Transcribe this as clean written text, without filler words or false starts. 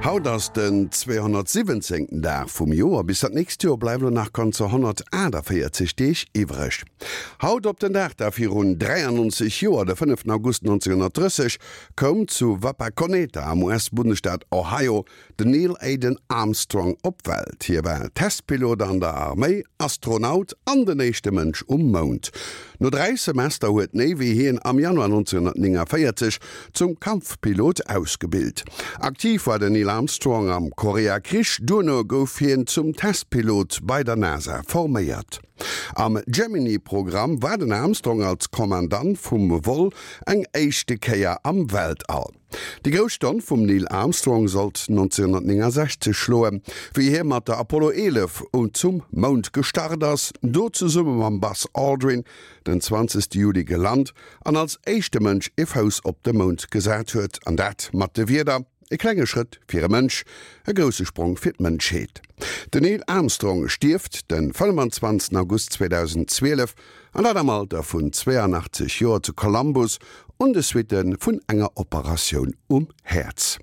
Haut ass den 217. Dag vum Joer. Bis dat nächst Joer bleiwe lo nach ganzer 148 Deeg iwwreg. Haut op den Dag da virun 93 Joer, de 5 August 1930, koum zu Wapakoneta am US-Bundesstaat Ohio Den Neil Aden Armstrong op d'Welt. Hie war Testpilot an der Arméi, Astronaut an den éischte Mënsch um Mound. No 3 Semester huet d'Navy hien am Januar 1949 zum Kampfpilot ausgebilt. Aktiv war den Neil Armstrong am Koreakrich, duerno gouf hien zum Testpilot bei der NASA forméiert. Am Gemini-Programm war den Armstrong als Kommandant vum Vol eng éischte Kéier am Weltall. Déi grouss Stonn vum Neil Armstrong sollt 1969 schloen, wéi hie mat der Apollo 11 zum Mound gestart ass, do zesumme mam Buzz Aldrin den 20 Juli gelant an als éischte Mënsch e Fouss op de Mound gesat huet, an dat mat de Wierder, E klenge Schrëtt fir e Mënsch, e grousse Sprong fir d'Mënschheet. Den Neil Armstrong stierft de 25 August 2012, an dat am Alter vun 82 Joer zu Columbus un de Suitte vun enger Operatioun um Häerz.